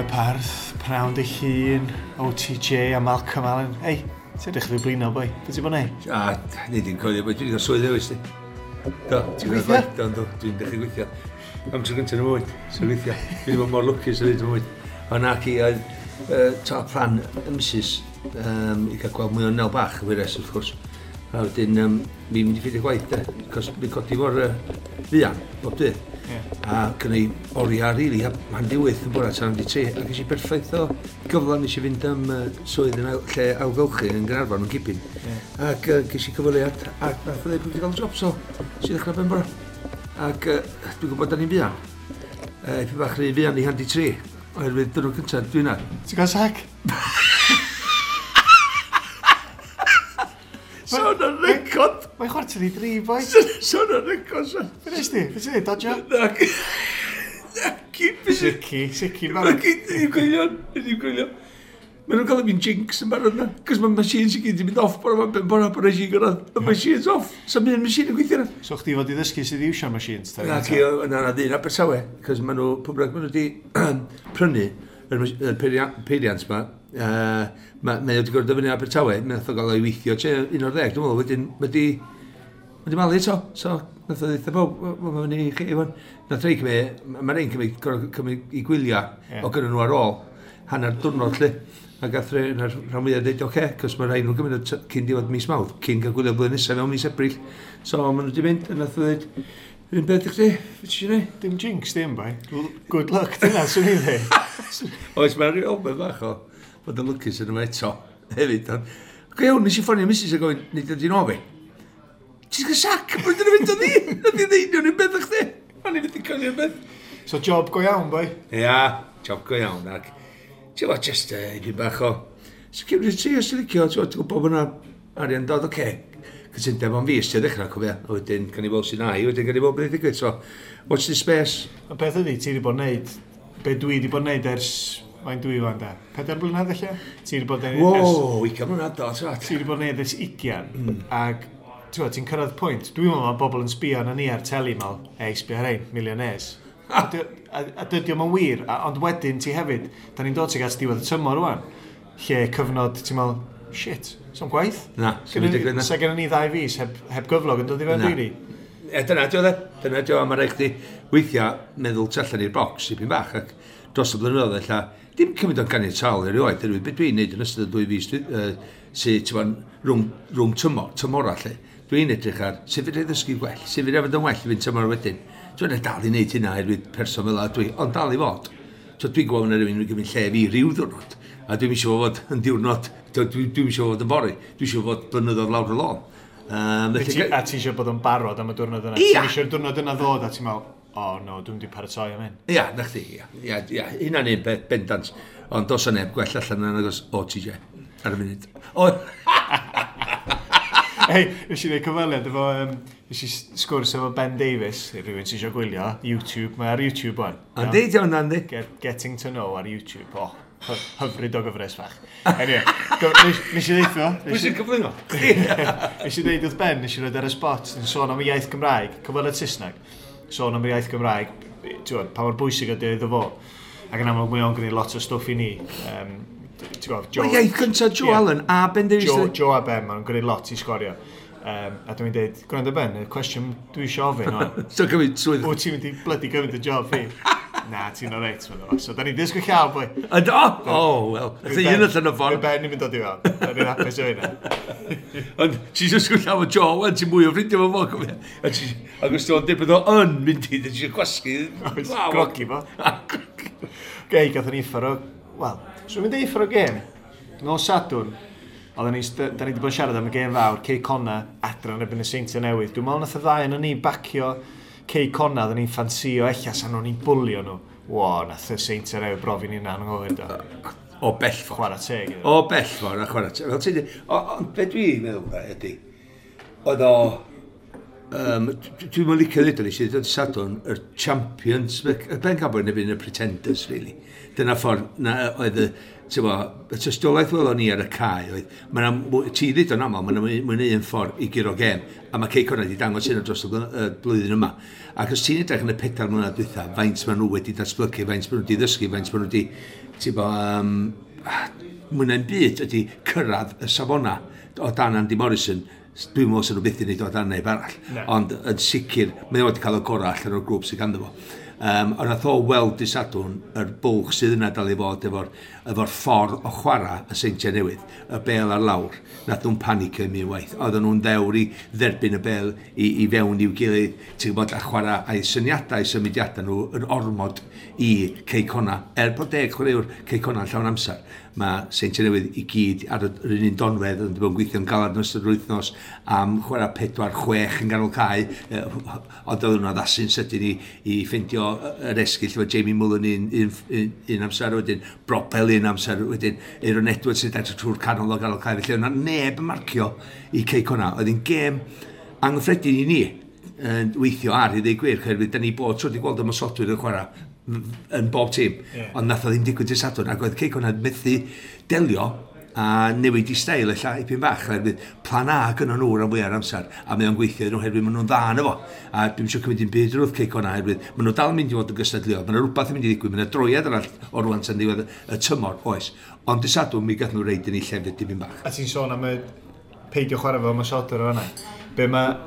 yn y parth, prawn dy hun, OTJ a Malcolm Allen. Ei, ti'n edrych rhyw blino, boi. Be ti'n bod neud? A, ni di'n coelio, boi. Dwi'n cael swydd ewis, di. Do, ti'n gweithio? Do, do, dwi'n dechrau gweithio. Am tro gyntaf yn y mywyd, sy'n gweithio. Dwi'n bod mor lwcus yn y mywyd. Ond nac i, oedd ta plan y missus i cael gweld mwy o Nel bach, y wyres, wrth gwrs. A wedyn, fi'n mynd i ffeindio gwaith, de, cos fi'n codi mor fuan, bob dydd. Yeah. A gynnu oriau, rili, a hanner 8 yn bore tan 3, a ges i berffaith o gyfle nes i fynd am swydd yn lle ailgylchu yn Gaernarfon yn Gibyn. Yeah. Ac ges i cyfweliad, ac nath o ddeud bod wedi cael job, so nes i ddechrau ben bore. Ac dwi'n gwybod da ni'n fuan. Ipyn bach rhy fuan i 2:30, oherwydd dwrnod cyntaf dwi'n ar. Ti'n cael sac? Sôn ar record! Mae'n 2:45, boi. Sôn ar record, son. Be nes di? Be ti'n neud, dodjo? Na, ci, Sici, sici, barod. Ddim gwylio, ddim gwylio. Maen nhw'n cael fi'n jinx yn barod na. Cos mae machines i gyd yn mynd off bore ma, ben bore, bore si gyrraedd. Y machines off. Sa'n un machine yn gweithio na. So chdi fod i ddysgu sydd i iwsio'r machines? Na, ci, na, na, ddyn Abertawe. Cos maen nhw, pwy bynnag maen nhw wedi prynu yr peiriant ma, mae wedi gorfod dyfynnu Abertawe, mae nath o gael ei weithio tua 11, dwi'n meddwl, wedyn mae di malu eto, so nath o ddeutha bawb, wel, mae'n fyny i chi, Iwan. Nath rei cymryd, mae rei'n cymryd, gorfod cymryd i gwyliau o gynnu nhw ar ôl, hanner diwrnod lle, a gath rei, na'r rhan fwyaf dweud, oce, cos mae rhai nhw'n gymryd cyn diwedd mis Mawrth, cyn cael gwylio blwyddyn nesaf mewn mis Ebrill. So maen nhw wedi mynd, a nath o dweud, yr un beth i chdi, beth ti eisiau gwneud? Dim jinx, dim bai. Good luck, dyna, swn i'n dweud. Oes, mae'n rhyw elfen bach o fod yn lwcus yn yma eto, hefyd. Ond, go iawn, nes i ffonio Mrs a gofyn, nid ydy'n o fi. Ti'n cael sac, bod yn mynd o ni? Nath i ddeud nhw'n un beth o'ch chdi. O'n i'n mynd i coelio'r beth. So job go iawn, boi? Ia, job go iawn. Ac, ti'n gwybod, just un bach o security, os ti'n licio, ti'n gwybod bod yna arian dod, oce. Cytundeb am fis, ti'n ddechrau, cofio. A wedyn, gan i weld sy'n ai, wedyn gan i weld beth ddigwydd. So, watch this space. Y peth ydy, ti wedi bod yn neud, be dwi wedi bod yn neud ers, mae'n dwi wan da, 4 blynedd ella? Ti wedi bod yn neud ers... Wow, 20 mlynedd do, ti'n Ti wedi bod yn neud ers 20, ac ti'n cyrraedd pwynt, dwi'n meddwl mae bobl yn sbio arna ni ar teli, mal, ei, sbio ar ein, millionaires. A dydy o'm yn wir, ond wedyn ti hefyd, da ni'n dod tuag at diwedd y tymor rwan, lle cyfnod, ti'n meddwl, shit, so'm gwaith. Na, so'm digwydd na. Sa gennym ni 2 fis heb gyflog yn dod i fewn, rili. E, dyna dio, de. Dyna dio, a mae rhaid chdi weithiau meddwl tu allan i'r bocs ipyn bach, ac dros y blynyddoedd ella, dim cymryd o'n ganiataol erioed, oherwydd beth dwi'n neud yn ystod y 2 fis sydd, ti'n gwbod, rhwng tymora, lle. Dwi'n edrych ar sut fedra i ddysgu gwell, sut fedra i fod yn well i fynd tymor wedyn. Dwi'n dal i wneud hynna oherwydd person fel 'a dwi, ond dal i fod. So dwi'n gwybod na rhywun yn gymryd lle fi ryw ddiwrnod, a dwi'n eisiau fod yn diwrnod, dwi'n eisiau fod yn fory, dwi eisiau fod blynyddoedd lawr y lôn. A ti eisiau bod yn barod am y diwrnod yna? Ia. Ti'n eisiau'r diwrnod yna ddod a ti'n meddwl, oh no, dwi'n di paratoi am hyn. Ia, na chdi, ia, ia, ia, hynna'n un peth bendant. Ond dos o neb gwell allan yna nagos OTJ ar y funud. O! Hei, nes i wneud cyfweliad efo, nes i sgwrs efo Ben Davies, i rhywun sy'n eisiau gwylio, YouTube, mae ar YouTube wan. Yndi, di hwnna, yndi. Getting to Know ar YouTube, oh, hyfryd o gyfres fach. Anyway, nes i ddeutho... Pwy sy'n cyflwyno? Nes i ddeud wrth Ben, nes i roed ar y spot, yn sôn am y iaith Gymraeg, cyfweliad Saesneg, sôn am y iaith Gymraeg, ti'n gwbod, pa mor bwysig ydy iddo fo. Ac yn amlwg mae o'n gwneud lot o stwff i ni. Ti'n gwbod, Joe... Mae iaith gyntaf Joe Allen a Ben Davies. Joe a Ben, maen nhw'n gwneud lot i sgorio. A dwi'n dweud, gwrando Ben, y cwestiwn dwi eisiau ofyn o'n. So cymryd swydd. Wyt ti'n mynd i blydi gymryd y job fi? Na, ti'n oreit, mae'n dod. So, da ni'n disgwyl llaw, boi. Yndo? Oh, wel. Nath un allan o ffordd. Mae Ben i'n mynd dod i fewn. Da ni'n hapus o hynna. Ond ti'n disgwyl llaw o Joe, wan, ti'n mwy o ffrindiau fo fo, cofio. Ac os ti'n dweud bod o yn mynd i, ti'n gwasgu. Grogi fo. Gei, gathon ni uffar o... Wel, so mynd i uffar o gêm. Nos Sadwrn, oedden ni, da ni wedi bod yn siarad am y gêm fawr, Cei Connah, adran erbyn y Seintiau Newydd. Dwi'n meddwl nath y ddau yn ni bacio Cei Connah, oedden ni'n ffansio ella sa'n nhw'n ni'n bwlio nhw. Wo, nath y Seintiau Newydd brofi ni'n anghywir do. O bell ffordd. Chwarae teg. O bell ffordd, a chwarae teg. Fel ti'n dweud, ond be dwi'n meddwl ydy, oedd o Dwi'n mynd licio ddweud o'n i sydd yn Sadwrn, yr champions, y bencampwyr neu y pretenders, really. Dyna ffordd na oedd y, bo, y tystiolaeth welon ni ar y cae oedd, ti ddweud o'n aml, mae'n mwy na un ffordd i guro gêm, a mae Cei Connah wedi dangos hyn dros y blwyddyn yma. Ac os ti'n edrych yn y 4 mlynedd dwytha, faint maen nhw wedi datblygu, faint maen nhw wedi ddysgu, faint maen nhw wedi, ti'n bo, mwy na'n byd ydy cyrraedd y safona o dan Andy Morrison. Dwi'n meddwl sy'n nhw byth i wneud o dan neb arall. No. Ond yn sicr, mae o wedi cael y gorau allan o'r grŵp sydd ganddo fo. Ond nath o weld dy Sadwrn yr bwlch sydd yna dal i fod efo'r efo ffordd o chwarae y Seintiau Newydd, y bel ar lawr. Nath nhw'n panicio i mi waith. Oedden nhw'n ddewr i dderbyn y bel i fewn i'w gilydd, ti'n gwybod, a chwarae a'i syniadau, symudiadau nhw yn ormod i Cei Connah. Er bod 10 chwaraewr Cei Connah yn llawn amser, mae Seintiau Newydd i gyd ar yr un donfedd yn bod yn gweithio'n galad yn ystod yr wythnos am chwarae 4-6 yn ganol cae, ond oedden nhw'n addasu'n sydyn i ffeindio yr esgyll efo Jamie Mullen un amser wedyn, Broppel un amser wedyn, Aaron Edwards sy'n edrych trwy'r canol o ganol cae, felly o'na neb yn marcio i Cei Connah. Oedd hi'n gêm anghyffredin i ni yn weithio ar i ddweud gwir, oherwydd da ni bod tro wedi gweld ymosodwyr yn chwarae yn bob tîm, ond nath o ddim digwydd dydd Sadwrn, ac oedd Cei Connah methu delio a newid i steil ella ipyn bach, oherwydd plan A gynnon nhw rhan fwyaf o'r amser, a mae o'n gweithio iddyn nhw oherwydd maen nhw'n dda yno fo. A dwi'n eisiau cymryd dim byd wrth Cei Connah oherwydd maen nhw dal yn mynd i fod yn gystadleuol, mae yna rhywbeth yn mynd i ddigwydd, mae yna droiad arall o rwan tan ddiwedd y tymor, oes. Ond dydd Sadwrn mi gath nhw reid yn ei llefydd dipyn bach. A ti'n sôn am y peidio chwarae fel ymosodwr o fan'na. Be mae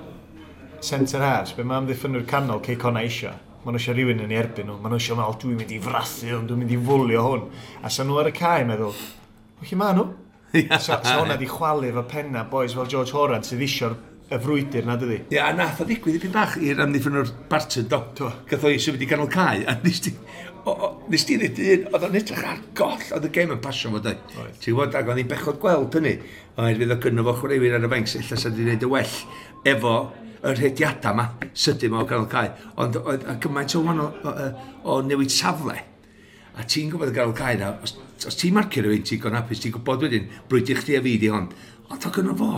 centre halves, be mae amddiffynwyr canol Cei Connah eisiau? Maen nhw eisiau rhywun yn ei erbyn nhw. Maen nhw eisiau meddwl, dwi'n mynd i frathu hwn, dwi'n mynd i fwlio hwn. A sa nhw ar y cae meddwl, o lle maen nhw? Sa hwnna di chwalu efo penna boys fel George Horan sydd eisiau'r y frwydr na, dydi? Ie, a nath o ddigwydd ipyn bach i'r amddiffynwr Barton, do. Gath o i symud i ganol cae, a nes ti ddweud un, oedd o'n edrych ar goll, oedd y gêm yn pasio fo, dweud. Ti'n gwybod, ac oedd hi'n bechod gweld hynny, oherwydd oedd gynno fo chwaraewyr ar y fainc, ella sa di wneud y well efo y rhediadau yma, sydyn ma o ganol cae. Ond oedd gymaint o wahanol o newid safle. A ti'n gwybod y ganol cae na, os ti'n marcio rhywun, ti'n gon hapus, ti'n gwybod wedyn, brwydr chdi a fi di hon. Ond o gynno fo,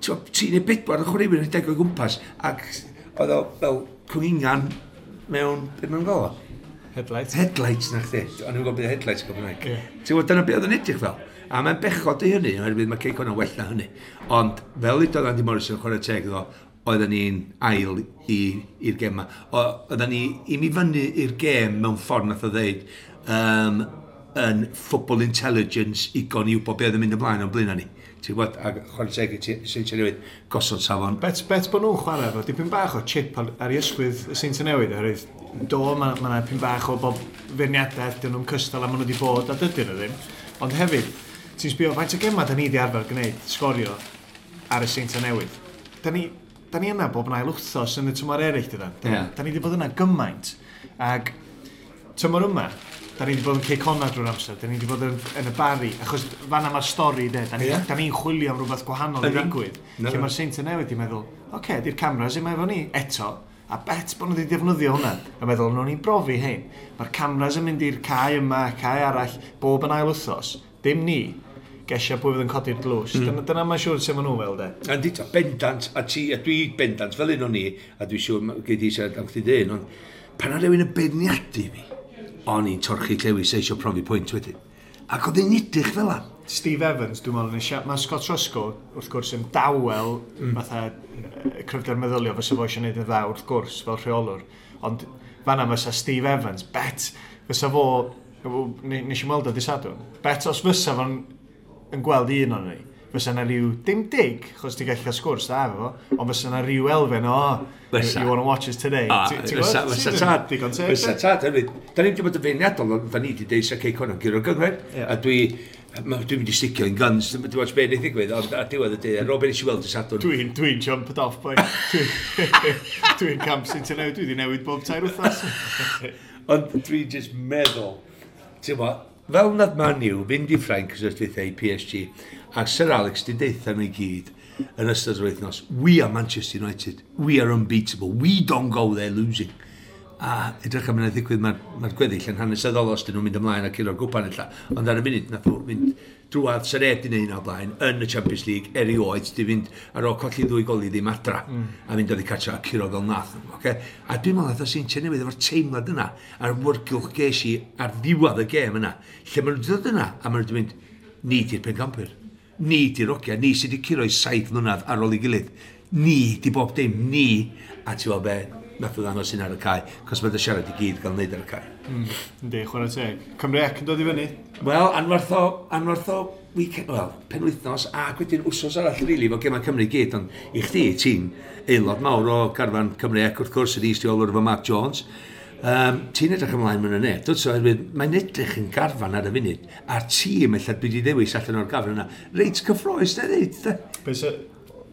ti'n ei bedwar yn chwaraewyr yn deg o gwmpas, ac oedd o fel cwningan mewn, beth mae'n gael o? Headlights. Headlights na chdi. O'n i'n gwybod beth headlights yn Gymraeg. Ti'n gwybod, dyna beth oedd yn edrych fel. A mae'n bechod i hynny, oherwydd mae Cei Connah well na hynny. Ond fel udodd Andy Morrison chwarae teg iddo, oedden ni'n ail i'r gêm yma. Oedden ni i mi fyny i'r gêm mewn ffordd nath o ddeud yn football intelligence igon i wybod beth oedd yn mynd ymlaen o'n blaen ni. Ti'n gwybod, ac chwarae teg i Seintiau Newydd, gosod safon. Bet bod nhw'n chwarae efo dipyn bach o chip ar ei ysgwydd y Seintiau Newydd, oherwydd do, mae yna dipyn bach o bob feirniadaeth, dyn nhw'n cystal a maen nhw wedi bod, a dydyn nhw ddim. Ond hefyd, ti'n sbio, faint o gemau da ni wedi arfer gwneud, sgorio ar y Seintiau Newydd. Da ni yna bob yn ail wythnos yn y tymor eraill, dydan. Da ni wedi bod yna gymaint. Ac tymor yma, da ni wedi bod yn Cei Connah drwy'r amser, da ni wedi bod yn y Barri, achos fan'na mae'r stori, de. Da ni'n chwilio am rhywbeth gwahanol i ddigwydd. Lle mae'r Seintiau Newydd wedi meddwl, oce, di'r cameras yma efo ni, eto, a bet bod nhw wedi defnyddio hwnna. A meddwl, nhw'n ni'n brofi hein. Mae'r cameras yn mynd i'r cae yma, cae arall, bob yn ail wythnos. Dim ni. Gesio pwy fydd yn codi'r dlws. Dyna mae'n siŵr sut maen nhw'n fel, de. A di, bendant, a ti, a dwi bendant fel un o'n i, a dwi siŵr gei di siarad am chdi dyn, ond pan oedd rhywun yn beirniadu fi, o'n i'n torchi llewis eisiau profi pwynt wedyn. Ac oedd hi'n edrych fel 'na. Steve Evans, dwi'n meddwl, mae Scott Roscoe, wrth gwrs, yn dawel, fatha cryfder meddyliol, fysa fo eisiau gwneud yn dda, wrth gwrs, fel rheolwr. Ond fan'na fysa Steve Evans, bet, fysa fo, nes i weld o dydd Sadwrn, bet os fysa fo'n yn gweld un o'n ni, fysa na rhyw, dim dig, chos ti'n gallu cael sgwrs da efo fo, ond fysa na rhyw elfen o, you wanna watch us today. Fysa tad, Digon teg, fysa tad, hefyd. Da ni'n wedi bod yn feirniadol, ond da ni wedi deud sa Cei Connah guro'r gynghrair, a dwi'n mynd i sticio in guns, dwi'n watch be wneith ddigwydd, ond ar diwedd y dydd, ar ôl be nes i weld y Sadwrn. Dwi'n jumped off, boy. Dwi'n camp sy'n newid, dwi wedi newid bob 3 wythnos. Ond dwi'n just meddwl, ti'n gwbod, fel nath Man U fynd i Ffrainc ys dwytha i PSG, a Sir Alex di deutha nhw i gyd yn ystod yr wythnos, we are Manchester United, we are unbeatable, we don't go there losing. A edrych am yna ddigwydd, mae'r gweddill yn hanesyddol os dyn nhw'n mynd ymlaen a curo'r gwpan ella. Ond ar y munud, nath nhw mynd Drwad sy'n neb di wneud o blaen yn y Champions League erioed, di fynd ar ôl colli 2-0 adra a mynd oddi cartra a curo fel nath. Okay? A dwi'n meddwl nath o Seintiau Newydd efo'r teimlad yna a'r wrgylch ges i ar ddiwedd y gêm yna, lle maen nhw'n dod yna a maen nhw'n mynd, ni di'r pencampwyr, ni di'r ogia, ni sydd wedi curo i 7 mlynedd ar ôl ei gilydd, ni di bob dim, ni, a ti'n gwybod be, nath o ddangos hyn ar y cae, cos mae dy siarad i gyd gael wneud ar y cae. Yndi, chwarae teg. Cymru Ec yn dod i fyny? Wel, anferth o weekend, wel, penwythnos, ac wedyn wsos arall, rili, really, fo gemau Cymru i gyd, ond i chdi, ti'n aelod mawr o garfan Cymru Ec, wrth gwrs, ydi is-reolwr efo Mark Jones. Ti'n edrych ymlaen mewn yna, dwt so, oherwydd mae'n edrych yn garfan ar y funud, a'r tîm ella dwi wedi ddewis allan o'r garfan yna, reit cyffrous, na ddeud. Be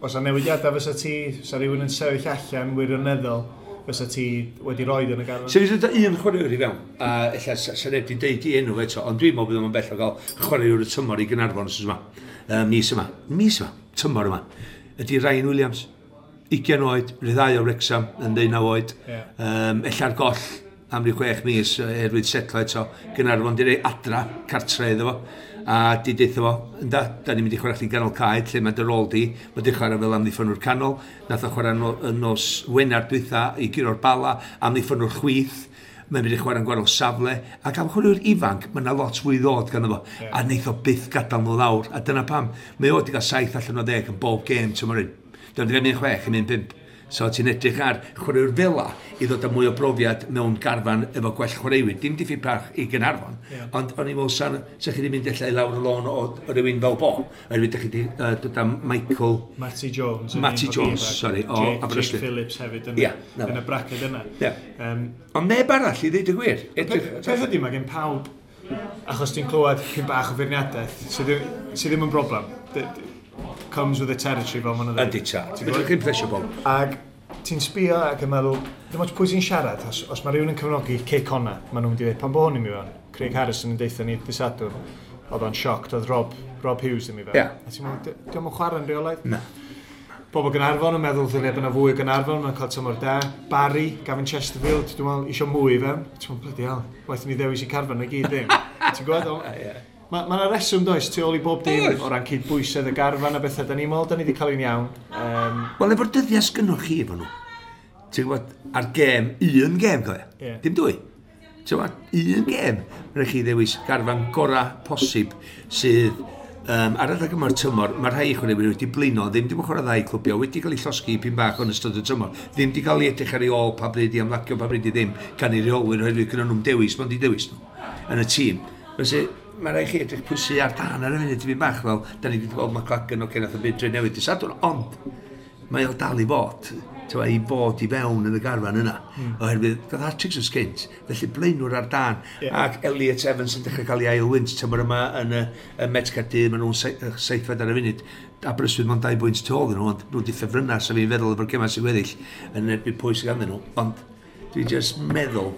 os a newidiadau fysa ti, sa rhywun yn sefyll allan wirioneddol, fysa ti wedi roed yn y garfan? So, fysa un chwaraewr i fewn, a ella sa neb wedi deud i enw eto, ond dwi'n meddwl bydd o'n bell o gael chwaraewr y tymor i Gaernarfon wsos yma. Mis yma, mis yma, tymor yma, ydy Ryan Williams. 20 oed, rhyddhau o Wrexham yn 19 oed. Yeah. Ella'r goll am ryw 6 mis erwyd setlo eto. Gaernarfon di rei adra, cartre iddo fo. A di deutha fo, ynda, da ni'n mynd i chwarae chdi ganol cae, lle mae dy rôl di. Mae di chwarae fel amddiffynwr canol. Nath o chwarae no, nos Wener dwytha i guro'r Bala, amddiffynwr chwith. Mae'n mynd i chwarae'n gwahanol safle. Ac am chwaraewr ifanc, mae yna lot fwy ddod ganddo fo. Yeah. A neith o byth gadael nhw lawr. A dyna pam, mae o wedi cael 7 allan o 10 yn bob gêm tymor hyn. Dyna wedi cael 1-6 yn 1-5. So ti'n edrych ar chwaraewr fela i ddod â mwy o brofiad mewn garfan efo gwell chwaraewyr. Dim diffyg parch i Gaernarfon, yeah. Ond o'n i'n meddwl sa chi wedi mynd ella i lawr y lôn o rywun fel bo. Oherwydd ydych chi wedi dod â Michael... Matty Jones. Matty Jones, sorry, o Aberystwyth. Jake Phillips hefyd yn, yeah, yn y braced yna. Yeah. Ond neb arall i ddweud y gwir. Peth ydy, mae gen pawb, achos ti'n clywed pyn bach o feirniadaeth, sydd ddim yn broblem. Comes with the territory fel ma'n dweud. Ydy ta. Ti'n gwybod? Chi'n plesio bob. Ac ti'n sbio ac yn meddwl, dim ots pwy sy'n siarad, os mae rhywun yn cefnogi Cei Connah, maen nhw'n mynd i ddweud, pan bo hwn i mi fewn, Craig Harrison yn deutha ni dydd Sadwrn, oedd o'n shocked, oedd Rob Hughes ddim i fewn. Yeah. A ti'n meddwl, dio'm yn chwarae'n rheolaidd? Na. Bobl Gaernarfon yn meddwl ddylia bod yna fwy o Gaernarfon, mae'n cael tymor da. Barry, Gavin Chesterfield, dwi'n meddwl, isio mwy i fewn. Ti'n meddwl, bloody hell, waeth ni ddewis i carfan i gyd ddim. Ti'n gwybod? Yeah. Mae yna reswm does tu ôl i bob dim o ran cydbwysedd y garfan a bethau. Da ni'n meddwl, da ni wedi cael un iawn. Wel, efo'r dyddiau sgynnoch chi efo nhw, ti'n gwybod, ar gêm, un gêm, cofio? Yeah. Dim dwy. Ti'n gwybod, un gêm, rhaid chi ddewis garfan gorau posib sydd ar adeg yma'r tymor, mae rhai chwaraewyr wedi blino, ddim wedi chwarae ddau clwbio, wedi cael ei llosgi pyn bach yn ystod y tymor, ddim wedi cael ei edrych ar ei ôl pa bryd i ymlacio, pa bryd i ddim, gan ei reolwyr, oherwydd gyda nhw'n dewis, mae'n di dewis nhw yn y tîm. Felly, mae rhaid chi edrych pwysi ar dan ar y funud tipyn bach fel, da ni wedi gweld McLagan o nath o byd dre newydd dydd Sadwrn, ond mae o dal i fod, i fod i fewn yn y garfan yna, oherwydd gath hat-tricks yn sgynt, felly blaenwr ar dan, yeah. Ac Elliot Evans yn dechrau cael ei ail wynt tymor yma yn y Met Caerdydd, maen nhw'n seithfed ar y funud, Aberystwyth mewn 2 bwynt tu ôl nhw, ond nhw wedi ffefrynnau, so fi'n feddwl efo'r gemau sy'n weddill yn erbyn pwy sydd ganddyn nhw, ond dwi'n just meddwl,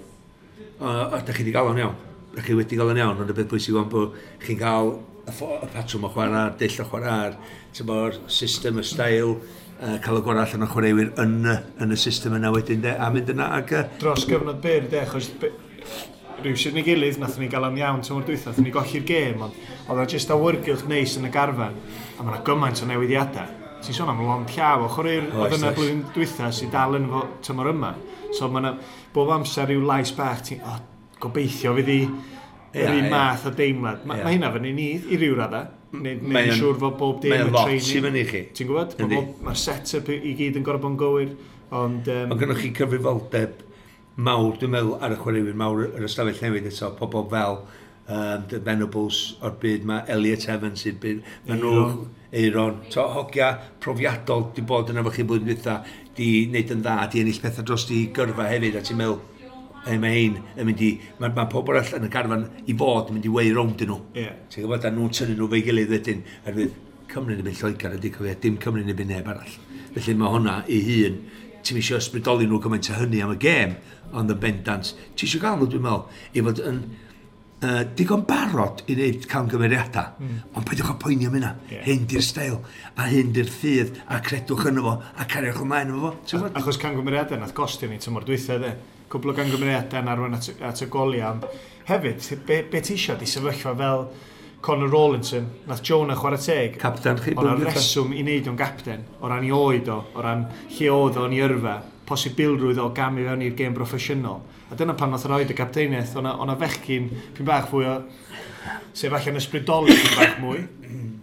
a da chi wedi gael o'n iawn. Da chi wedi gael yn iawn, ond y beth bwysig o'n bod chi'n cael y patrwm o chwarae, dull o chwarae, tymo'r system, y style, cael y gorau allan o chwaraewyr yn y system yna wedyn, de, a mynd yna ac... Dros gyfnod byr, de, achos rhywsut neu gilydd, nathon ni gael o'n iawn tymor dwytha, nathon ni golli'r gêm, ond oedd o jyst awyrgylch neis yn y garfan, a mae yna gymaint o newidiadau. Ti'n sôn am lond llaw o chwaraewyr oedd yna blwyddyn dwytha sydd dal yn fo tymor yma. So mae yna bob amser rhyw lais bach, ti'n gobeithio fydd i yr un math o deimlad. Mae hynna fyny ni i ryw raddau. Neu'n siŵr fod bob dim yn training. Mae'n lot i fyny chi. Ti'n gwybod? Mae'r set-up i gyd yn gorfod bod yn gywir. Ond gynnoch chi cyfrifoldeb mawr, dwi'n meddwl, ar y chwaraewyr mawr yr ystafell newydd eto, pobl fel The Venables o'r byd, mae Elliot Evans i'r byd, mae nhw, Eiron, to, hogia profiadol di bod yna efo chi blwyddyn dwytha, di wneud yn dda, di ennill pethau dros di gyrfa hefyd, a ti'n meddwl, mae hein yn mynd i, mae pobl arall yn y garfan i fod yn mynd i wei rownd nhw. Yeah. Ti'n gwybod, a nhw'n tynnu nhw fe'i gilydd wedyn, oherwydd Cymru'n erbyn Lloegr ydy cofio, dim Cymru'n erbyn neb arall. Felly mae hwnna ei hun, ti'n eisiau ysbrydoli nhw gymaint o hynny am y gêm, ond yn bendant, ti eisiau gael nhw, dwi'n meddwl, i fod yn digon barod i wneud camgymeriadau, ond peidiwch â poeni am hynna. Yeah. Hyn di'r steil, a hyn di'r ffydd, a credwch yno fo, a cariwch ymlaen efo fo. Achos camgymeriadau nath gostio ni tymor dwytha, de. Cwbl o gamgymeriadau yn arwain at y goliau. Ond hefyd, be ti isio di sefyllfa fel Connor Rawlinson, nath Jonah chwarae teg. Capten chi. O'na reswm i wneud o'n gapten, o ran i oed o, o ran lle oedd o'n i yrfa, posibilrwydd o gamu fewn i'r gêm broffesiynol. A dyna pan nath roed y gapteiniaeth, o'na fechgyn pyn bach fwy o, sef allan ysbrydoli pyn bach mwy,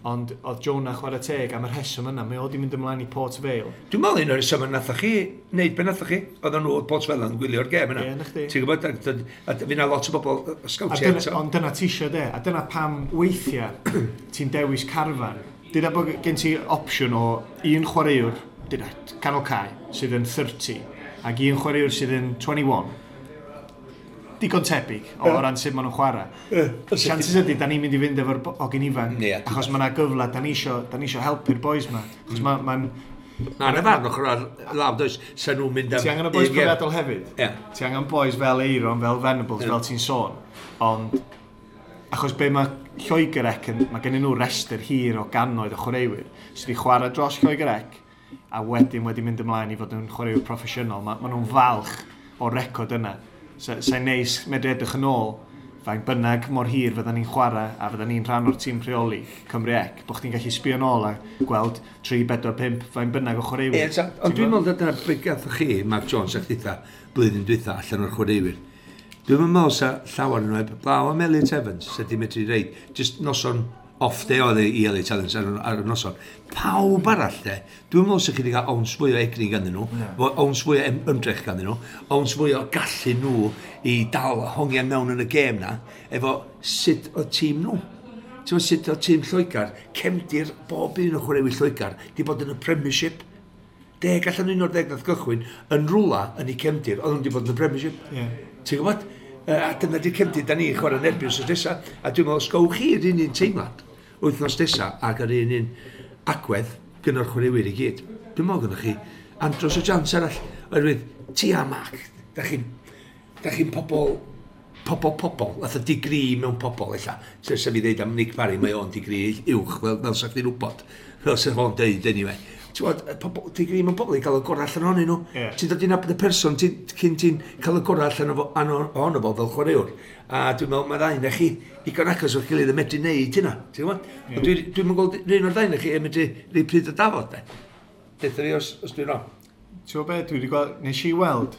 ond oedd Jonah chwarae teg am y rheswm yna, mae o di mynd ymlaen i Port Vale. Dwi'n meddwl un o'r rheswm nathoch chi wneud be nathoch chi, oedden nhw Port Vale yn gwylio'r gêm yna. Ie, na chdi. Ti'n gwybod, a fi na lot o bobl sgawtiau eto. Ond dyna ti isio de, a dyna pam weithiau ti'n dewis carfan. Dyna bod gen ti opsiwn o un chwaraewr, dyna, canol cae, sydd yn 30, ac un chwaraewr sydd yn 21. Digon tebyg o ran sut maen nhw'n chwarae. Chances ydy, da ni'n mynd i fynd efo'r hogyn ifanc, achos mae yna gyfle, da ni isio helpu'r boys ma. Achos mae'n... Na, na farn ochr ar law, does, sa nhw'n mynd am... Ti angen y boys profiadol hefyd. Ti angen boys fel Eiron, fel Venables, fel ti'n sôn. Ond, achos be mae Lloegr Ec, mae gen nhw restr hir o gannoedd o chwaraewyr sydd wedi chwarae dros Lloegr Ec, a wedyn wedi mynd ymlaen i fod yn chwaraewyr proffesiynol. Ma nhw'n falch o'r record yna. Sa'n neis medru edrych yn ôl, faint bynnag mor hir fyddan ni'n chwarae a fyddan ni'n rhan o'r tîm rheoli Cymru Ec, bod chdi'n gallu sbio nôl a gweld 3, 4, 5, faint bynnag o chwaraewyr. Ie, ond dwi'n meddwl dyna beth gathoch chi, Mark Jones, a chditha, blwyddyn dwytha allan o'r chwaraewyr. Dwi'n meddwl sa llawer yn nhw, blaw am Elliot Evans, sa di medru reid, just noson off day oedd i Elliot Evans ar y noson. Pawb arall de, dwi'n meddwl sa chi wedi cael owns fwy o egni ganddyn nhw, owns fwy o ymdrech ganddyn nhw, owns fwy o gallu nhw i dal hongian mewn yn y gêm na, efo sut o tîm nhw. Ti'n meddwl sut o tîm Lloegr, cefndir bob un o chwaraewyr Lloegr, di bod yn y Premiership. 10 allan 11 nath gychwyn yn rwla yn ei cefndir, oedd nhw wedi bod yn y Premiership. Ti'n gwybod? A dyna di'r cefndir da ni'n chwarae yn erbyn wythnos nesa. A dwi'n meddwl, os gowch chi'r un un teimlad wythnos nesa ac yr un un agwedd gyda'r chwaraewyr i gyd. Dwi'n meddwl gyda chi andros o chance arall. Oherwydd, ti a Mark, da chi'n pobol, fatha digri mewn pobol, ella. Sef fi ddeud am Nick Parry, mae o'n digri uwch, fel sa chdi'n wybod. Fel sa fo'n deud, anyway. Ti'n gwybod, pobol, digri mewn pobol i gael y gorau allan ohonyn nhw. Ti'n dod i nabod y person, cyn ti'n cael y gorau allan ohono fo fel chwaraewr. A dwi'n meddwl, mae ddau na chi digon agos o'ch gilydd yn medru neud hynna, ti'n gwybod? Ond dwi'n gweld un o'r ddau na chi yn medru rhoi pryd o dafod, de. Deutha fi os dwi'n wrong. Ti'n gwybod be, dwi wedi gweld, nes i weld,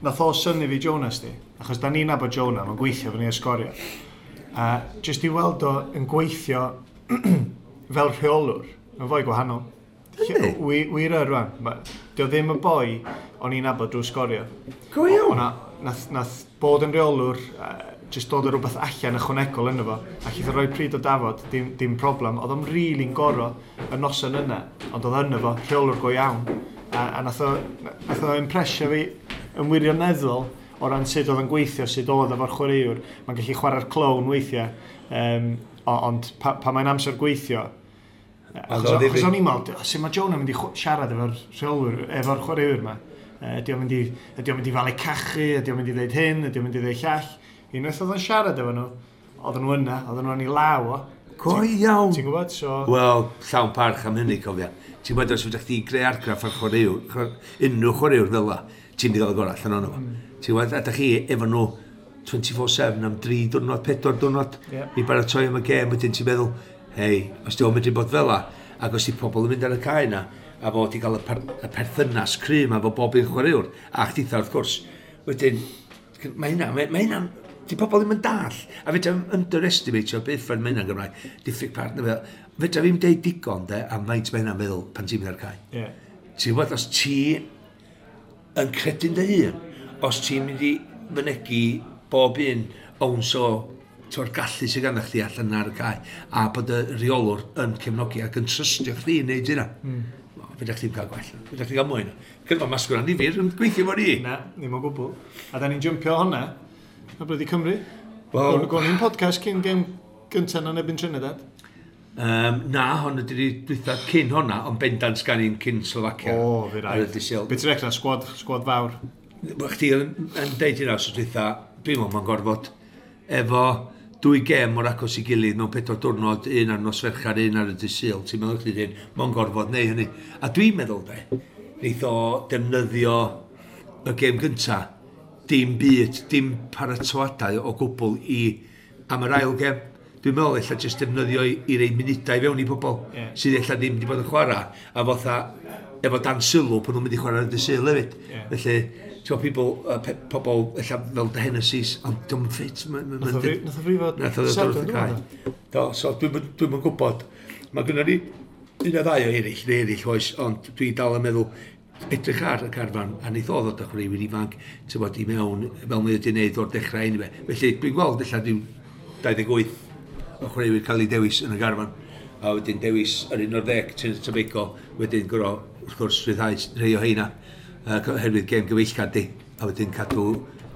nath o synnu fi Jonas di, achos da ni'n nabod Jonah, mae'n gweithio fyny Sgorio. A jyst i weld o yn gweithio fel rheolwr, mae'n fwy gwahanol. Wir yr rwan. Dio ddim y boi o'n i'n nabod drwy Sgorio. Go iawn. Nath bod yn rheolwr, jyst dod o rhywbeth allan ychwanegol yno fo, a chith o roi pryd o dafod, dim problem. Oedd o'n rili'n goro y noson yna, ond oedd yno fo, rheolwr go iawn. A nath o impresio fi yn wirioneddol o ran sut oedd yn gweithio, sut oedd efo'r chwaraewr. Mae'n gallu chwarae'r clown weithiau, ond pa mae'n amser gweithio, achos o'n i'n meddwl, sut mae Jonah mynd i siarad efo'r rheolwyr, efo'r chwaraewyr yma? Ydy o'n mynd i falu cachu, ydy o'n mynd i ddeud hyn, ydy o'n mynd i ddeud llall. Unwaith oedd o'n siarad efo nhw, oedden nhw yna, oedden nhw yn ei law o. Go iawn. Ti'n gwybod, so... Wel, llawn parch am hynny, cofia. Ti'n gwybod, os ydych chdi greu argraff ar chwaraewr, unrhyw chwaraewr fel la, ti'n mynd i gael y gorau allan ohono fo. Ti'n gwybod, a dych chi efo nhw 24/7 am 3 diwrnod, 4 diwrnod, i baratoi am y gêm, wedyn ti'n meddwl, hei, os di o'n medru bod fel la, ac os di pobl yn mynd ar y cae yna, a fod i gael y perthynas cry yma efo bob un chwaraewr, a chditha wrth gwrs, wedyn, mae hynna, di pobl ddim yn dall, a fedra i'm underestimatio beth ffordd mae hynna'n Gymraeg, diffyg partner fel, fedra fi'm deud digon de, am faint mae hynna'n meddwl pan ti'n mynd ar cae. Ti'n gwybod, os ti yn credu'n dy hun, os ti'n mynd i fynegi bob un owns o o'r gallu sydd ganddo chdi allan ar y cae, a bod y rheolwr yn cefnogi ac yn trystio chdi i wneud hynna. Fedra chdi'm cael gwell, fedra chdi gael mwy. Cyn ma masgwr annifyr yn gweithio fo ni. Na, ddim o gwbl. A da ni'n jympio hwnna, a blydi Cymru. Wel... Gwn i'n podcast cyn gêm gyntaf yn erbyn Trinidad. Na, hon ydy'r dwytha cyn honna, ond bendant gan i'n cyn Slovacia. O, fi raid. Be ti'n recna, sgwad fawr? Chdi yn deud hynna, so dwytha, dwi'n meddwl mae'n gorfod efo 2 gêm mor agos i gilydd mewn 4 diwrnod, un ar nos Fercher, un ar y dydd Sul, ti'n meddwl chdi hyn, mae'n gorfod neu hynny. A dwi'n meddwl de, neith o defnyddio y gêm gynta, dim byd, dim paratoadau o gwbl i am yr ail gêm. Dwi'n meddwl ella jyst defnyddio i rei munudau fewn i pobl sydd ella ddim wedi bod yn chwarae, a fatha efo dan sylw pan nhw'n mynd i chwarae ar y Sul hefyd. Felly, ti'n gwybod, pobl ella fel The Hennessy's, ond dwi'n ffit. Nath o frifo Nath o ddod wrth y cae. Do, so dwi'n gwybod. Mae gynnon ni un o ddau o eraill, neu eraill oes, ond dwi dal yn meddwl edrych ar y carfan, a neith o ddod â chwaraewyr ifanc, ti'n bod, i mewn, fel mae wedi gwneud o'r dechrau anyway. Felly dwi'n gweld ella ryw 28 o chwaraewyr cael ei dewis yn y garfan, a wedyn dewis yr 11 Trinidad Tobago, wedyn gorau, wrth gwrs, rhyddhau rhai o heina, oherwydd gêm gyfeillgar di, a wedyn cadw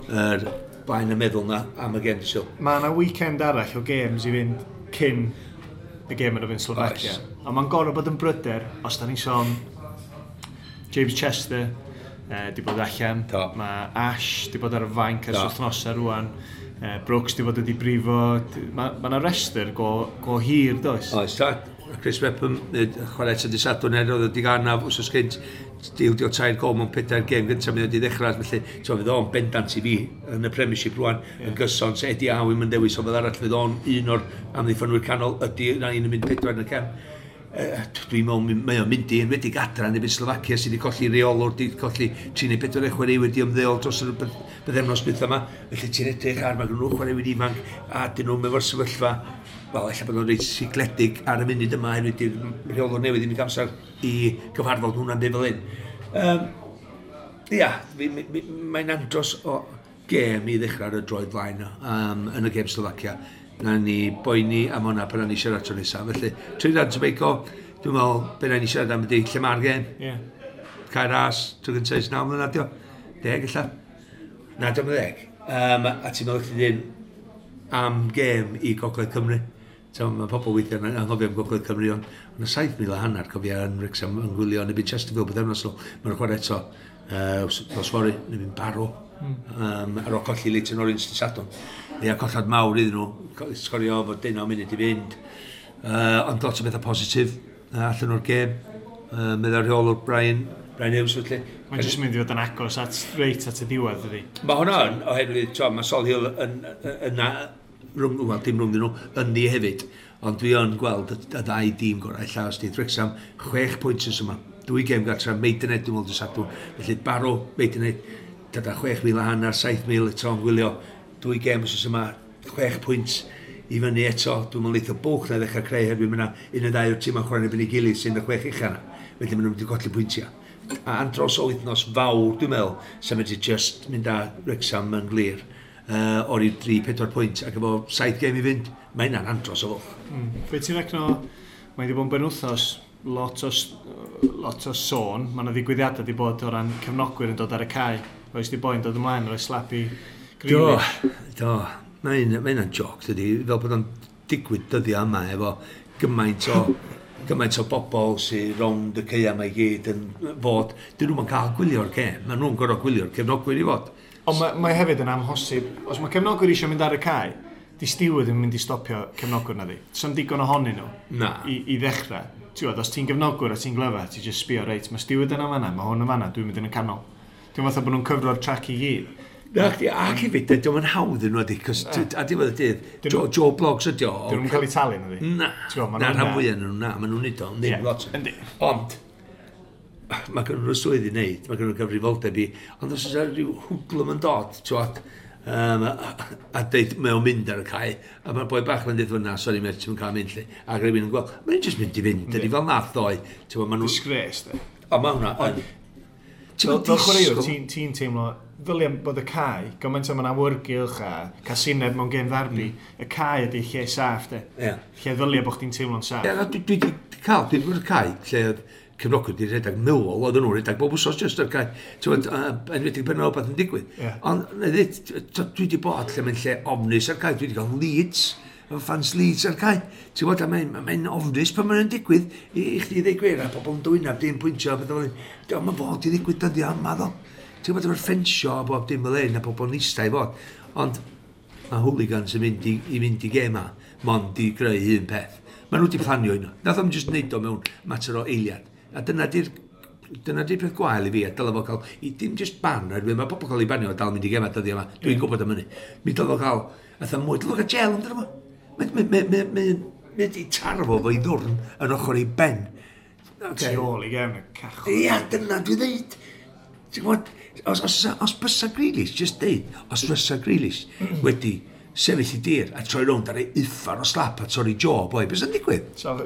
yr blaen y meddwl na am y gêm dydd Sul. Mae yna weekend arall o games i fynd cyn y gêm yn erbyn Slovakia. A mae'n gorfod bod yn bryder, os da ni'n sôn James Chester di bod allan, mae Ash di bod ar y fainc ers wythnosau rwan, Brooks di bod wedi brifo, mae yna restr go hir, does? Oes, ta. Chris Mepham, chwarae eto dydd Sadwrn er oedd wedi gael anaf wsos gynt, ildio 3 gol mewn 4 gêm gyntaf mynd wedi ddechrau, felly so, fydd o'n bendant i fi yn y Premiership rwan, yn gyson, so Eddie Howe yn dewis o fel arall, fydd o'n un o'r amddiffynwyr canol, ydy na un yn mynd 4 yn y cefn. Dwi'n meddwl, mae o'n mynd i enwedig adra yn erbyn Slovacia sydd wedi colli reolwr, wedi colli 3 neu 4 chwaraewyr wedi ymddeol dros y bythefnos dwytha yma. Felly ti'n edrych ar, mae gen nhw chwaraewyr ifanc a dyn nhw'n efo'r sefyllfa, wel, ella bod nhw'n reit sigledig ar y munud yma, oherwydd di'r rheolwr newydd ddim wedi amser i gyfarfod hwnna'n deud fel hyn. Ia, mae'n andros o gêm i ddechrau ar y droed flaen yn y gêm Slovacia. Na ni boeni am hwnna pan ni siarad tro nesaf. Felly, Trinidad Tobago, dwi'n meddwl, be na ni siarad am ydy lle mae'r gêm. Cae Ras, tro gyntaf ers 9 mlynedd, dio. 10 ella. Na, dio'm yn 10. A ti'n meddwl chdi ddim am gêm i Gogledd Cymru. So, mae pobl weithiau yn anghofio am Gogledd Cymru, ond yna 7,500 cofio yn Wrexham yn gwylio yn erbyn Chesterfield bythefnos nôl. Mae'n chwarae eto nos fory, yn erbyn Barrow. Ar ôl colli Leyton Orient dydd Sadwrn. Ia, collad mawr iddyn nhw, sgorio fod 19 munud i fynd. Ond lot o bethau positif allan o'r gêm. Meddai'r rheolwr Bryan Hughes, felly. Mae'n jyst mynd i fod yn agos at reit at y diwedd, ydy. Mae hwnna yn, oherwydd, t'o, mae Solihull yn, rhwng, wel, dim rhwng nhw, yn ni hefyd. Ond dwi yn gweld y ddau dîm gorau, ella os di Wrexham, 6 pwynt ys yma. 2 gêm gartra, Maidenhead, dwi'n meddwl, dydd Sadwrn. Felly Barrow, Maidenhead, dyda 6,500, 7,000 eto yn gwylio. 2 gêm wsos yma, 6 pwynt i fyny eto. Dwi'n meddwl eitha bwch na ddechrau creu hefyd, mae yna un neu ddau o'r tîm yn chwarae yn erbyn ei gilydd sy'n y 6 ucha yna. Felly maen nhw'n mynd i golli pwyntiau. A andros o wythnos fawr, dwi'n meddwl, sy'n mynd i just mynd â Wrexham yn glir o'r i 3-4 pwynt ac efo 7 gêm i fynd, mae hynna'n andros o fwlch. Be ti'n recno, mae wedi bod yn benwythnos, lot o sôn, mae yna ddigwyddiadau wedi bod o ran cefnogwyr yn dod ar y cae. Oes di boi'n dod ymlaen, oes slapu Grealish. Do, mae hynna'n joc, dydi, fel bod o'n digwydd dyddiau yma efo gymaint o bobl sy'n rownd y caeau yma i gyd yn fod, dyn nhw'm yn cael gwylio'r gêm, maen nhw'n gorfod gwylio'r cefnogwyr i fod. Ond mae hefyd yn amhosib, os mae cefnogwyr eisiau mynd ar y cae, di steward yn mynd i stopio cefnogwyr na ddi. So'n digon ohonyn nhw i ddechrau. Ti'n gwbod, os ti'n gefnogwyr a ti'n glyfar, ti'n just sbio, reit, mae steward yna fan'na, mae hwn yn fan'na, dwi'n mynd yn y canol. Dwi'n fatha bod nhw'n cyfro'r trac i gyd. Na, chdi, ac hefyd, dio'm yn hawdd yn nhw, cos a diwedd y dydd, Joe Bloggs ydi o. Dyn nhw'n cael eu talu, na di? Na, Ti'n gwbod, ma' na, nhw'n rhan na. fwyaf nhw, na, ma' nhw'n neud o, ddim lot. Ond, mae gen nhw'r swydd i wneud, mae gen nhw'r gyfrifoldeb i, ond os oes yna rhyw hwdlwm yn dod, ti'n gwbod, a deud, mae o'n mynd ar y cae, a mae'r boi bach yn dweud, na, sori, mate, ti'n cael mynd, lle. A rhywun yn gweld, mae'n just mynd i fynd, dydi fel nath ddoe. Ti'n gwbod, ma' nhw Disgrace, de. O, mae hwnna, ond ti'n Fel mynd chwaraewr, disgwyl ti'n teimlo, ddylia bod y cae, gymaint o mae'n awyrgylch a casineb mewn gêm ddarbi, y cae ydi lle saff, de. Lle ddylia bod chdi'n teimlo'n saff. Ie, na, dwi di cael, dwi wedi bod y cae, lle oedd cefnogwyr wedi rhedeg Millwall, oedden nhw'n rhedeg bob wsos just ar cae. Ti'n gwbod, enwedig pan oedd rhywbeth yn digwydd. Ond, na ddweud, dwi wedi bod lle mae'n lle ofnus ar cae, dwi wedi cael Leeds, efo fans Leeds ar cae. Ti'n gwbod, a mae'n ofnus pan mae'n digwydd i chdi ddweud gwir, a pobl yn dwynaf, dim pwyntio, a beth fel hyn. Diolch, mae'n fod i ddigwydd dyddiau yma, ddo. Ti'n gwbod, efo'r ffensio a bob dim fel hyn, a pobl yn eistedd i fod. Ond mae hooligans yn mynd i mynd i gêm ma, mond i greu un peth. Maen nhw wedi planio hynna. Nath o'm jyst neud o mewn mater o eiliad. A dyna di'r peth gwael i fi, a dylai fo cael, i dim just ban, oherwydd mae pobl cael ei banio a dal mynd i gema dyddiau yma. Dwi'n gwybod am hynny. Mi dylai fo cael, fatha mwy, dylai fo cael gel amdano fo. Mae di tarfo fo'i ddwrn yn ochr ei ben. Okay. Tu ôl i gefn y cachod. Ia, dyna dwi ddeud. Ti'n gwybod, os bysa Grealish, just deud, os fysa Grealish wedi sefyll i dir a troi rownd ar ei uffar o slap a torri jaw, boi, beth sy'n digwydd? So,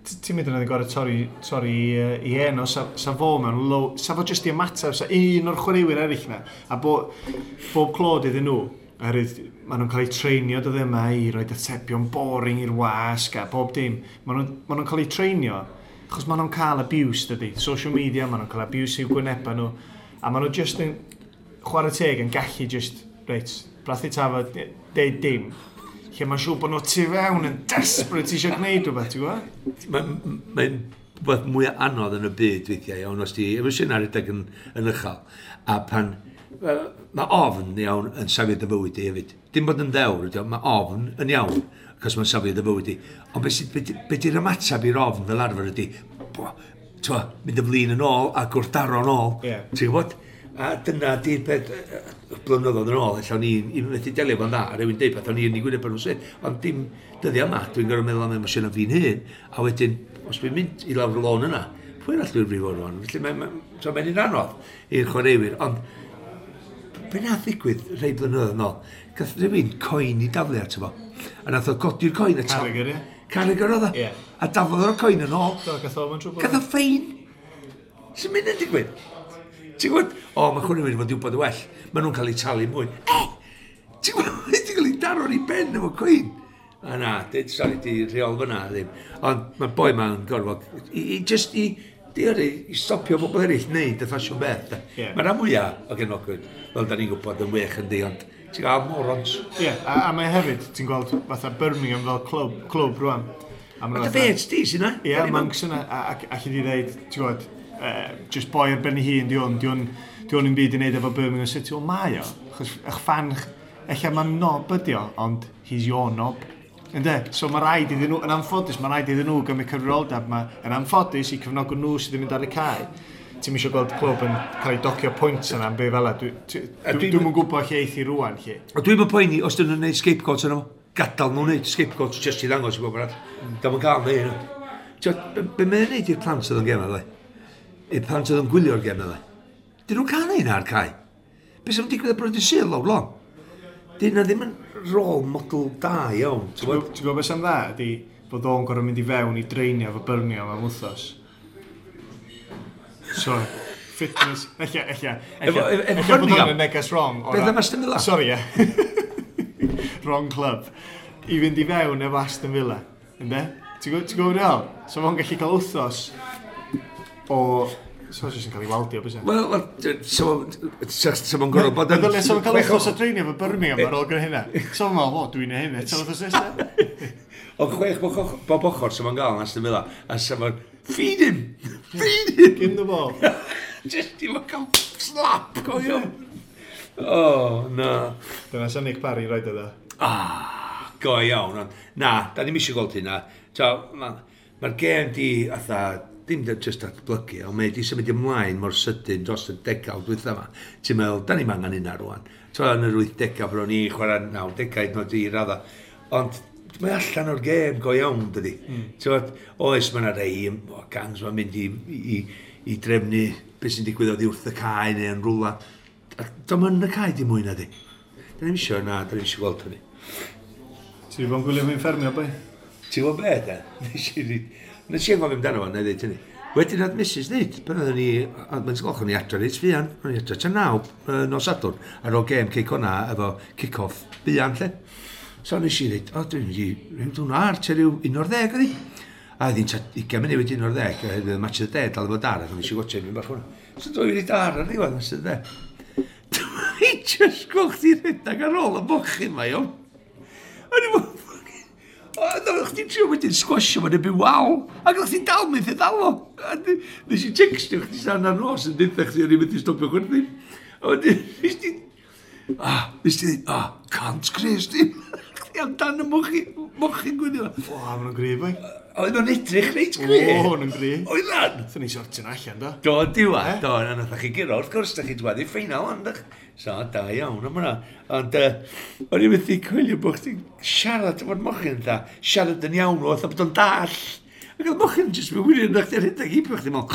ti'n mynd yn gorau torri i enw, sa fo mewn low, sa fo jyst i ymateb, sa un o'r chwaraewyr eraill na, a bob clod iddyn nhw, oherwydd maen nhw'n cael eu treinio dyddiau yma i roi atebion boring i'r wasg a bob dim. Maen nhw'n cael eu treinio, achos maen nhw'n cael abuse, dydy. Social media, maen nhw'n cael abuse i'w gwynebau nhw. A maen nhw just yn chwarae teg yn gallu just, reit, brathu tafod, deud dim. Lle mae'n siŵr bod nhw tu fewn yn desperate eisiau gwneud rhywbeth, ti'n gwybod? Mae'n rhywbeth mwy anodd yn y byd weithiau, iawn, os di emosiynau rhedeg yn uchel. A pan mae ofn iawn yn safio dy fywyd di hefyd. Dim bod yn ddewr, mae ofn yn iawn, achos mae'n safio dy fywyd di. Ond be di'r ymateb i'r ofn fel arfer ydi, twa, mynd y flin yn ôl a gwrthdaro yn ôl. Yeah. Ti'n gwybod? A dyna di'r peth blynyddoedd yn ôl, ella o'n i'n methu delio fo'n dda, a rhywun deud peth o'n i'n ei gwyneb nhw'n syth. Ond dim dyddiau yma, dwi'n gorfod meddwl am emosiynau fi'n hun, a wedyn, os dwi'n mynd i lawr y lôn yna, pwy arall dwi'n brifo rwan? Felly mae'n un anodd i'r chwaraewyr, ond be nath ddigwydd rhai blynyddoedd yn ôl? Gath rhywun coin i daflu ato fo. A nath o godi'r coin a Carragher, ie. Carragher oedd o. Yeah. A daflodd o'r coin yn ôl. Do, gath o mewn trwbl. Gath o ffein. Sy'n mynd yn digwydd? Ti'n gwybod? O, mae chwaraewyr fod i wybod y well. Maen nhw'n cael eu talu mwy. Ti'n gwybod? Ti'n cael ei daro ar ei ben efo coin. A na, dyd, sori, di rheol fyna ddim. Ond mae'r boi ma'n gorfod, i i stopio bobl eraill wneud y ffasiwn beth. Yeah. Mae rhan mwyaf o gefnogwyr, fel da ni'n gwybod, yn wych yndi, ond ti'n gael morons. Ie, yeah, a mae hefyd, ti'n gweld fatha Birmingham fel clwb rwan. A dy feds di sy'n na? Ie, Monks yna, a allu di ddeud, ti'n gwybod, just boi ar ben ei hun, di hwn yn byd i wneud efo Birmingham City. Wel, mae o, achos eich fan, ella mae'n knob ydi o, ond he's your knob. Ynde? So mae rhaid iddyn nhw, yn anffodus, mae rhaid iddyn nhw gymryd cyfrifoldeb yma, yn anffodus i cefnogwr nhw sydd yn mynd ar y cae. Ti'n eisiau gweld clwb yn cael ei docio pwynt yna am be fel 'a. Dwi'm yn gwybod lle eith i rwan, lle. A dwi'm yn poeni os dyn nhw'n gwneud scapegoats yno. Gadael nhw'n gwneud scapegoats just i ddangos i bobl arall. Dio'm yn cael neud hynna. Be mae'n gwneud i'r plant sydd yn gem dde? I'r plant sydd yn gwylio'r gem dde? Dyn nhw'n cael neud ar cae? Be sy'n digwydd ar bwrdd y Sul lawr lon? Dyn nhw ddim yn role model da iawn. Ti'n gwybod beth sy'n dda ydy bod o'n gorfod mynd i fewn i dreinio efo Birmingham am wythnos. So, fitness, ella bod o'n y neges wrong. Beth am Aston Villa? Sorry, ie. Wrong club. I fynd i fewn efo Aston Villa. Ynde? Ti'n gwybod beth? So fo'n gallu cael wythnos o... So jyst yn cael ei waldio, bys e? Wel, so fo'n gorfod bod yn... So fo'n cael wythnos o dreinio efo Birmingham ar ôl gyda hynna. So fo'n meddwl, o, dwi'n ei hynny, eto wythnos nesaf. Ond chwech bob ochr, so fo'n gael yn Aston Villa, a so fo'n... Feed him! Feed him! Give him the ball. Just i fo'n cael slap, go iawn. Oh, na. Dyna sy'n Nick Parry roed iddo. Ah, go iawn. Ond, na, da ni'm eisiau gweld hynna. Mae'r gêm di, atha, dim just datblygu, ond mae di symud ymlaen mor sydyn dros y degawd dwytha yma. Ti'n meddwl, da ni'm angen hynna rwan. Ti'n yn yr 80au, bron ni chwarae 90au, nod i radda. Ond mae allan o'r gêm go iawn, dydy. Ti'n oes, mae yna rei o gangs mae'n mynd i drefnu beth sy'n digwydd oddi wrth y cae neu yn rwla. Do'm yn y cae dim mwy na di. Da ni'm isio, na, da ni'm isio gweld hynny. Ti wedi bod yn gwylio fi'n ffermio, boi? Ti'n gwybod be, da? Nes i anghofio amdano fo, na i ddeud hynny. Wedyn oedd Mrs ddeud, pan oedden ni, mae'n sgolch o'n i adre reit fuan, o'n i adre tua 9 nos Sadwrn, ar ôl gêm Cei Connah efo kick-off buan, lle. So nes i ddeud, o, dwi'n mynd i rhyw dwi'n ar, tua rhyw 11 oedd hi. A oedd hi'n tua 20 munud wedi 11, oherwydd y match of the day dal efo dar, ac nes i watcha un bach hwnna. So dwi'n mynd i dar ar ddiwedd match of the day. Dwi'n just gweld chdi rhedeg ar ôl y mochyn ma, iawn. O'n i'n meddwl, o, oedd chdi'n trio wedyn sgwasio fo'n ebyn wal, ac oedd chdi'n dal methu ddal o. A nes i textio chdi san ar nos yn deutha chdi o'n i'n methu stopio chwerthin. A wedyn, nes ti, nes ti dweud, can't Chris, di. chdi amdan y mochyn gwylio. O, maen nhw'n gryf, boi. Oedd nhw'n edrych reit gry. O, nhw'n gry. Oedd lan. Thyn ni sortio nhw allan, do. Do, diwa, do, na nath chi guro, wrth gwrs, da chi dwad i'r ffeinal, ond so, da iawn am hwnna. Ond, o'n i'n methu coelio bod chdi'n siarad efo'r mochyn, dda, siarad yn iawn, oedd bod o'n dall. Ac oedd mochyn jyst mewn wirion, na chdi'n rhedeg heibio chdi, mewn,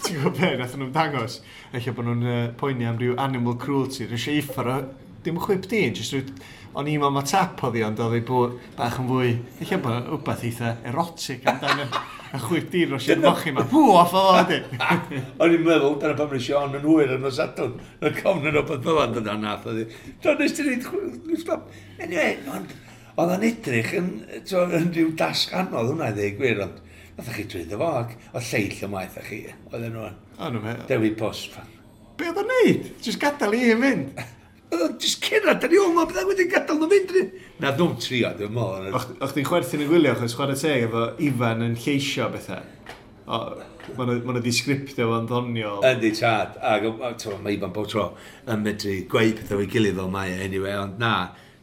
Ti'n gwybod be, nath nhw'n dangos, eich bod nhw'n poeni am ryw animal cruelty, rwy'n eisiau uffar o, dim chwip di, jyst rhyw, o'n i'n meddwl ma tap oedd hi, ond oedd hi bod bach yn fwy, eich bod rhywbeth eitha erotic amdano y chwip di dros i'r mochyn ma, pw, off o fo, di. O'n i'n meddwl, dyna pam nes i on yn hwyr yn nos Sadwrn, yn cofn yn rhywbeth fel yna, dyna nath oedd hi. Do, nes ti neud stop. Anyway, ond oedd o'n edrych yn, yn rhyw dasg anodd hwnna i ddweud gwir, ond nath chi drwyddo fo, ac oedd lleill ymaith a chi, oedden nhw yn. O'n nhw'n Dewi Post. Be oedd o'n neud? Jyst gadael i hyn fynd. Oedd o'n jyst cerdded ar ei ôl, mae bydda wedi gadael nhw fynd. Na, nhw'n trio, dwi'n meddwl. O'ch chdi'n chwerthin yn gwylio, achos chwarae teg efo Ifan yn lleisio bethau. Mae nhw wedi sgriptio fo'n ddoniol. Yndi, tad. Ac mae Ifan bob tro yn medru gweud pethau o'i gilydd fel mae e, anyway, ond na.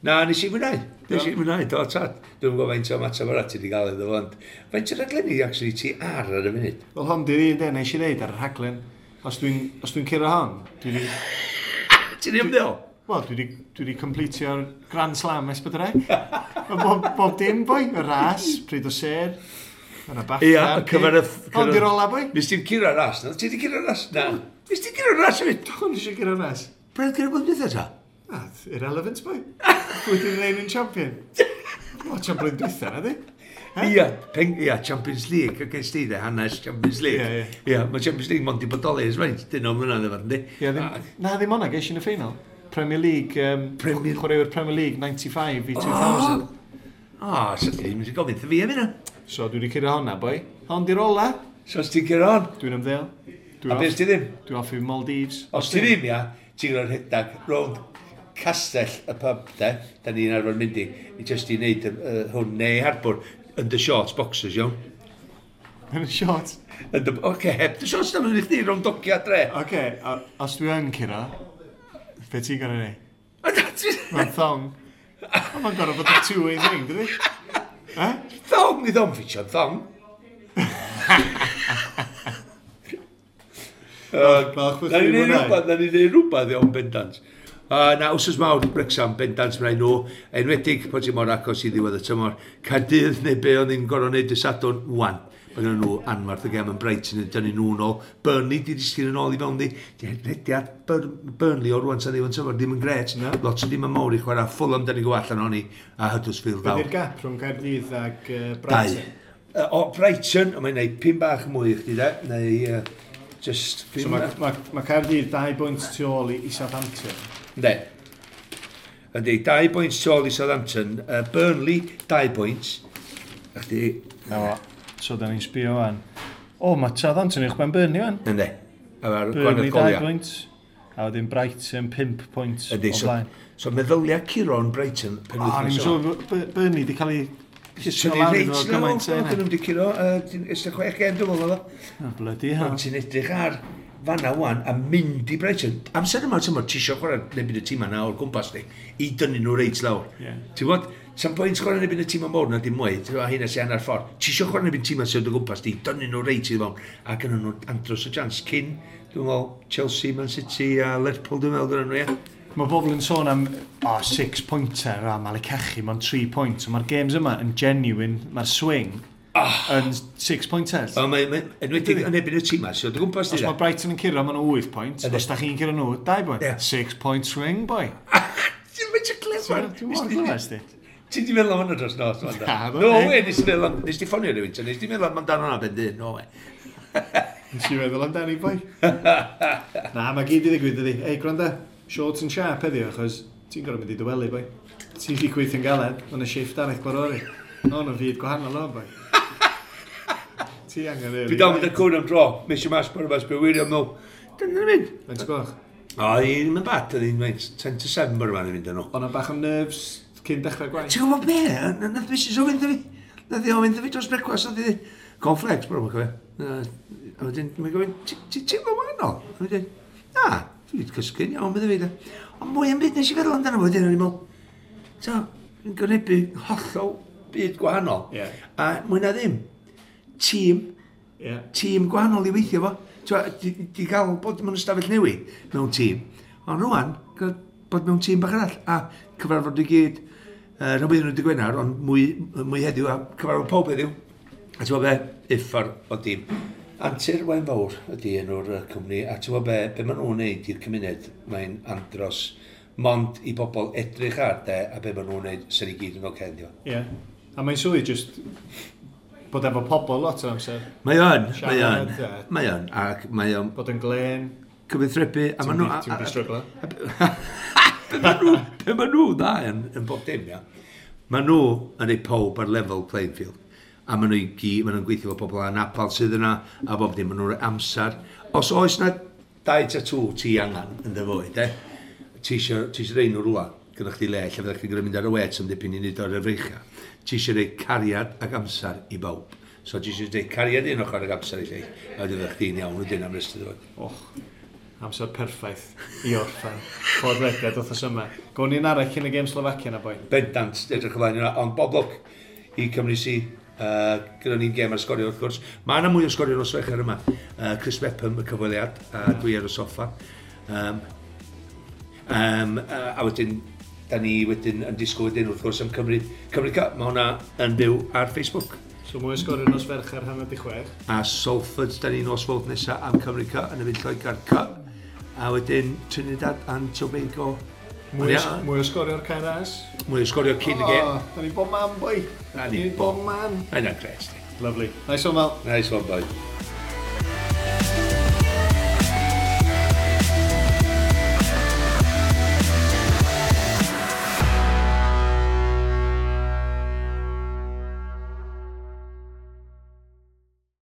Na, nes i fwynhau. Nes i fwynhau, do, tad. Dwi'n gwybod faint o ymateb arall ti wedi gael iddo fo, ond faint o raglenni, actually, ti ar y funud? Wel, hon di'r un de, nes i ddeud ar y rhaglen. Os dwi'n curo hon, dwi wedi... Ti'n ymddeol? Wel, dwi wedi completio'r Grand Slam S4C. Bob dim, boi, y ras, pryd o ser, yna BAFTA. Ia, y cyfer y... Hon di'r ola, boi. Nes ti'n curo'r ras, na? Ti wedi curo'r ras? Na. Nes ti'n curo'r ras hefyd? Do, nes i curo'r ras. Bryd curo blwyddyn dwytha ta? Na, irrelevant, boi. Pwy di'r reigning champion? O, champion blwyddyn dwytha, na di? Ia, ia, Champions League, ac ges ti de, hanes Champions League. Ia, mae Champions League mond i bodoli ers faint, dyn o'n mlynedd efo, yndi? Ia, na, ddim o'na, ges i yn y ffeinal. Premier League, chwaraewyr Premier League 95 i 2000. O, so ti ddim wedi gofyn fi am hynna. So, dwi wedi curo honna, boi. Hon di'r ola. So, os ti'n curo hon? Dwi'n ymddeol. A beth ti ddim? Dwi'n off i Maldives. Os ti ddim, ia, ti'n gwneud rhedeg rownd castell y pub, de, da ni'n arfer mynd i just i wneud hwn neu harbwr, yn dy shorts boxers, iawn. Yn y shorts? Oce, heb dy shorts, da, mae'n chdi rownd dogia dre. Oce, os dwi yn curo, be ti'n gorau neud? Mae'n thong. Mae'n gorau bod yn two-way thing, dydi? Thong, ni thong ffitio'n thong. Na ni'n neud rhywbeth iawn bendant. Na, wsos mawr Wrexham, bendant mae'n nhw, enwedig pan ti mor agos i ddiwedd y tymor. Caerdydd neu be oedd ni'n gorfod wneud y Sadwrn, wan. Mae gen nhw anfarth y gem yn Brighton yn dynnu nhw nôl. Burnley di disgyn yn ôl i fewn di. Rhediad Burnley o rwan tan ddiwedd tymor ddim yn gret. No. Lot o ddim yn mawr i chwarae. Fulham dyn ni'n go allan ohoni a Huddersfield fawr. Be di'r gap rhwng Caerdydd ag Brighton? Dau. O, Brighton, mae'n gwneud 5 bach mwy i chdi de. Neu just... So mae Caerdydd 2 bwynt tu ôl i Southampton. Ynddi. Ynddi, 2 bwynt tu ôl i Southampton. Burnley, 2 bwynt. A chdi... No. So, da ni'n sbio fan. O, mae Southampton uwch ben Burnley fan. Ynddi. Burnley 2 pwynt. A wedyn Brighton 5 pwynt o blaen. So, meddylia Curo'n Brighton penwythnos. O, ni'n siŵr Burnley di cael ei llusgo lawr iddo fo gymaint. Dyn nhw wedi curo, 16 gêm dwi'n meddwl. O, bloody hell. Ond ti'n edrych ar fanna wan a mynd i Brighton. Amser yma, ti'n ti isio chwarae neu bydd y tîm yna o'r gwmpas ni, i dynnu nhw reit lawr. Ti'n gwybod, sa'n pwynt chwarae neu bydd y tîm mawr na dim mwy, ti'n gwybod, hynna sy'n hanner ffordd. Ti isio chwarae neu bydd tîm sy'n o gwmpas di, dynnu nhw reit i fewn. A gynnu nhw andros o chance cyn, dwi'n meddwl, Chelsea, Man City a Liverpool, dwi'n meddwl, gynnu nhw, ie. Mae bobl yn sôn am 6 pointer, a Malik Cachu, mae'n 3 point. Mae'r games yma yn genuine, mae'r swing yn 6 pointers. O, mae enwedig yn ebyn y tîm yma, so dy gwmpas di. Os mae Brighton yn curo, maen nhw 8 point. Os da chi'n curo nhw, 2 point. 6 point swing, boy. Ti'n mynd clever. Dwi'n mor clever, sti. Ti di meddwl am hwnna dros nos? No way, nes ti ffonio rhywun, nes ti meddwl amdano hwnna ben dyn, no way. Nes i meddwl amdani, boi. Na, mae gyd i ddigwydd, ydi. Ei, gwranda, short and sharp heddiw, achos ti'n gorfod mynd i dy wely, boi. Ti'n di gweithio'n galed, mae'n y shift arall gwarori. No, no, fyd gwahanol o'n, boi. Ti angen Dwi dal mynd ar cwn am dro, mis i mas, bore mas, be wirio nhw. Dyna'n mynd. Faint o gloch? O, i'n mynd bad, oedd hi'n mynd 10 to 7 bore ma'n mynd nhw. O'na bach o nerves cyn dechrau gwaith? Ti'n gwybod be? Nath Mrs o fynd fi. Nath i o fynd fi dros brecwast, nath i cornflakes, bore ma'n cofio. A wedyn, mae'n gofyn, ti'n teimlo wahanol? A wedyn, na, dwi wedi cysgu'n iawn, bydde fi. Ond mwy am byd nes i feddwl amdano fo, wedyn o'n i'n meddwl, so, yn gwynebu hollol byd gwahanol. Yeah. A mwy na ddim, tîm, tîm gwahanol i weithio fo. Di, di gael bod mewn ystafell newid mewn tîm. Ond rwan, bod mewn tîm bach arall. A cyfarfod i gyd, rhywbeth nhw wedi Gwener, ond mwy, mwy heddiw, a cyfarfod pob heddiw. A ti'n gwybod be? Uffar o dîm. Antur Waun Fawr ydy enw'r cwmni, a ti'n gwybod be, be maen nhw'n neud i'r cymuned, mae'n andros mond i bobl edrych ar de, a be maen nhw'n neud sy'n i gyd yn oce, yndi o. Ie. Yeah. A mae'n swydd just bod efo pobl lot o'r amser. Mae o'n, mae o'n, mae o'n, ac mae o'n... Bod yn glen. Cyfathrebu, a maen nhw... Ti'n mynd i stryglo. Be maen nhw dda yn bob dim, ia. Maen nhw yn ei pob ar level playing field. A maen nhw i gyd, maen nhw'n gweithio efo pobl anabl sydd yna, a bob dim, maen nhw'n rhoi amser. Os oes na dau tatŵ ti angen yn dy fywyd, e, ti eisiau rhoi nhw rhywle, gyda chdi le, lle fyddech chi'n mynd ar y wet am dipyn i wneud o'r efreichia. Ti eisiau rhoi cariad ac amser i bawb. So ti eisiau rhoi cariad un ochr ac amser i lleill, a wedyn fyddech chdi'n iawn wedyn am rest o dy fywyd. Och, amser perffaith i orffen. Podlediad wythnos yma. Gawn ni'n arall cyn y gêm Slovacia na boi. Bendant, edrych ymlaen yna, ond bob lwc i Cymru si. Gyda ni'n gêm ar sgorio wrth gwrs. Mae yna mwy o sgorio nos Fercher yma. Chris Mepham, y cyfweliad, a dwi ar y soffa. A wedyn, da ni wedyn yn disgwyl wedyn wrth gwrs am Cymru, Cymru Cup. Mae hwnna yn byw ar Facebook. So mwy o sgorio nos Fercher 5:30. A Salford, da ni nos Fawrth nesaf am Cymru Cup yn y fyd Lloegr Cup. A wedyn Trinidad and Tobago. Mwy o sgorio o'r Cae Ras. Mwy o sgorio cyn y gêm. Da ni bob man, boi. Da ni bob man. Mae'n gret. Lovely. Nice one, Mal. Nice one, boi.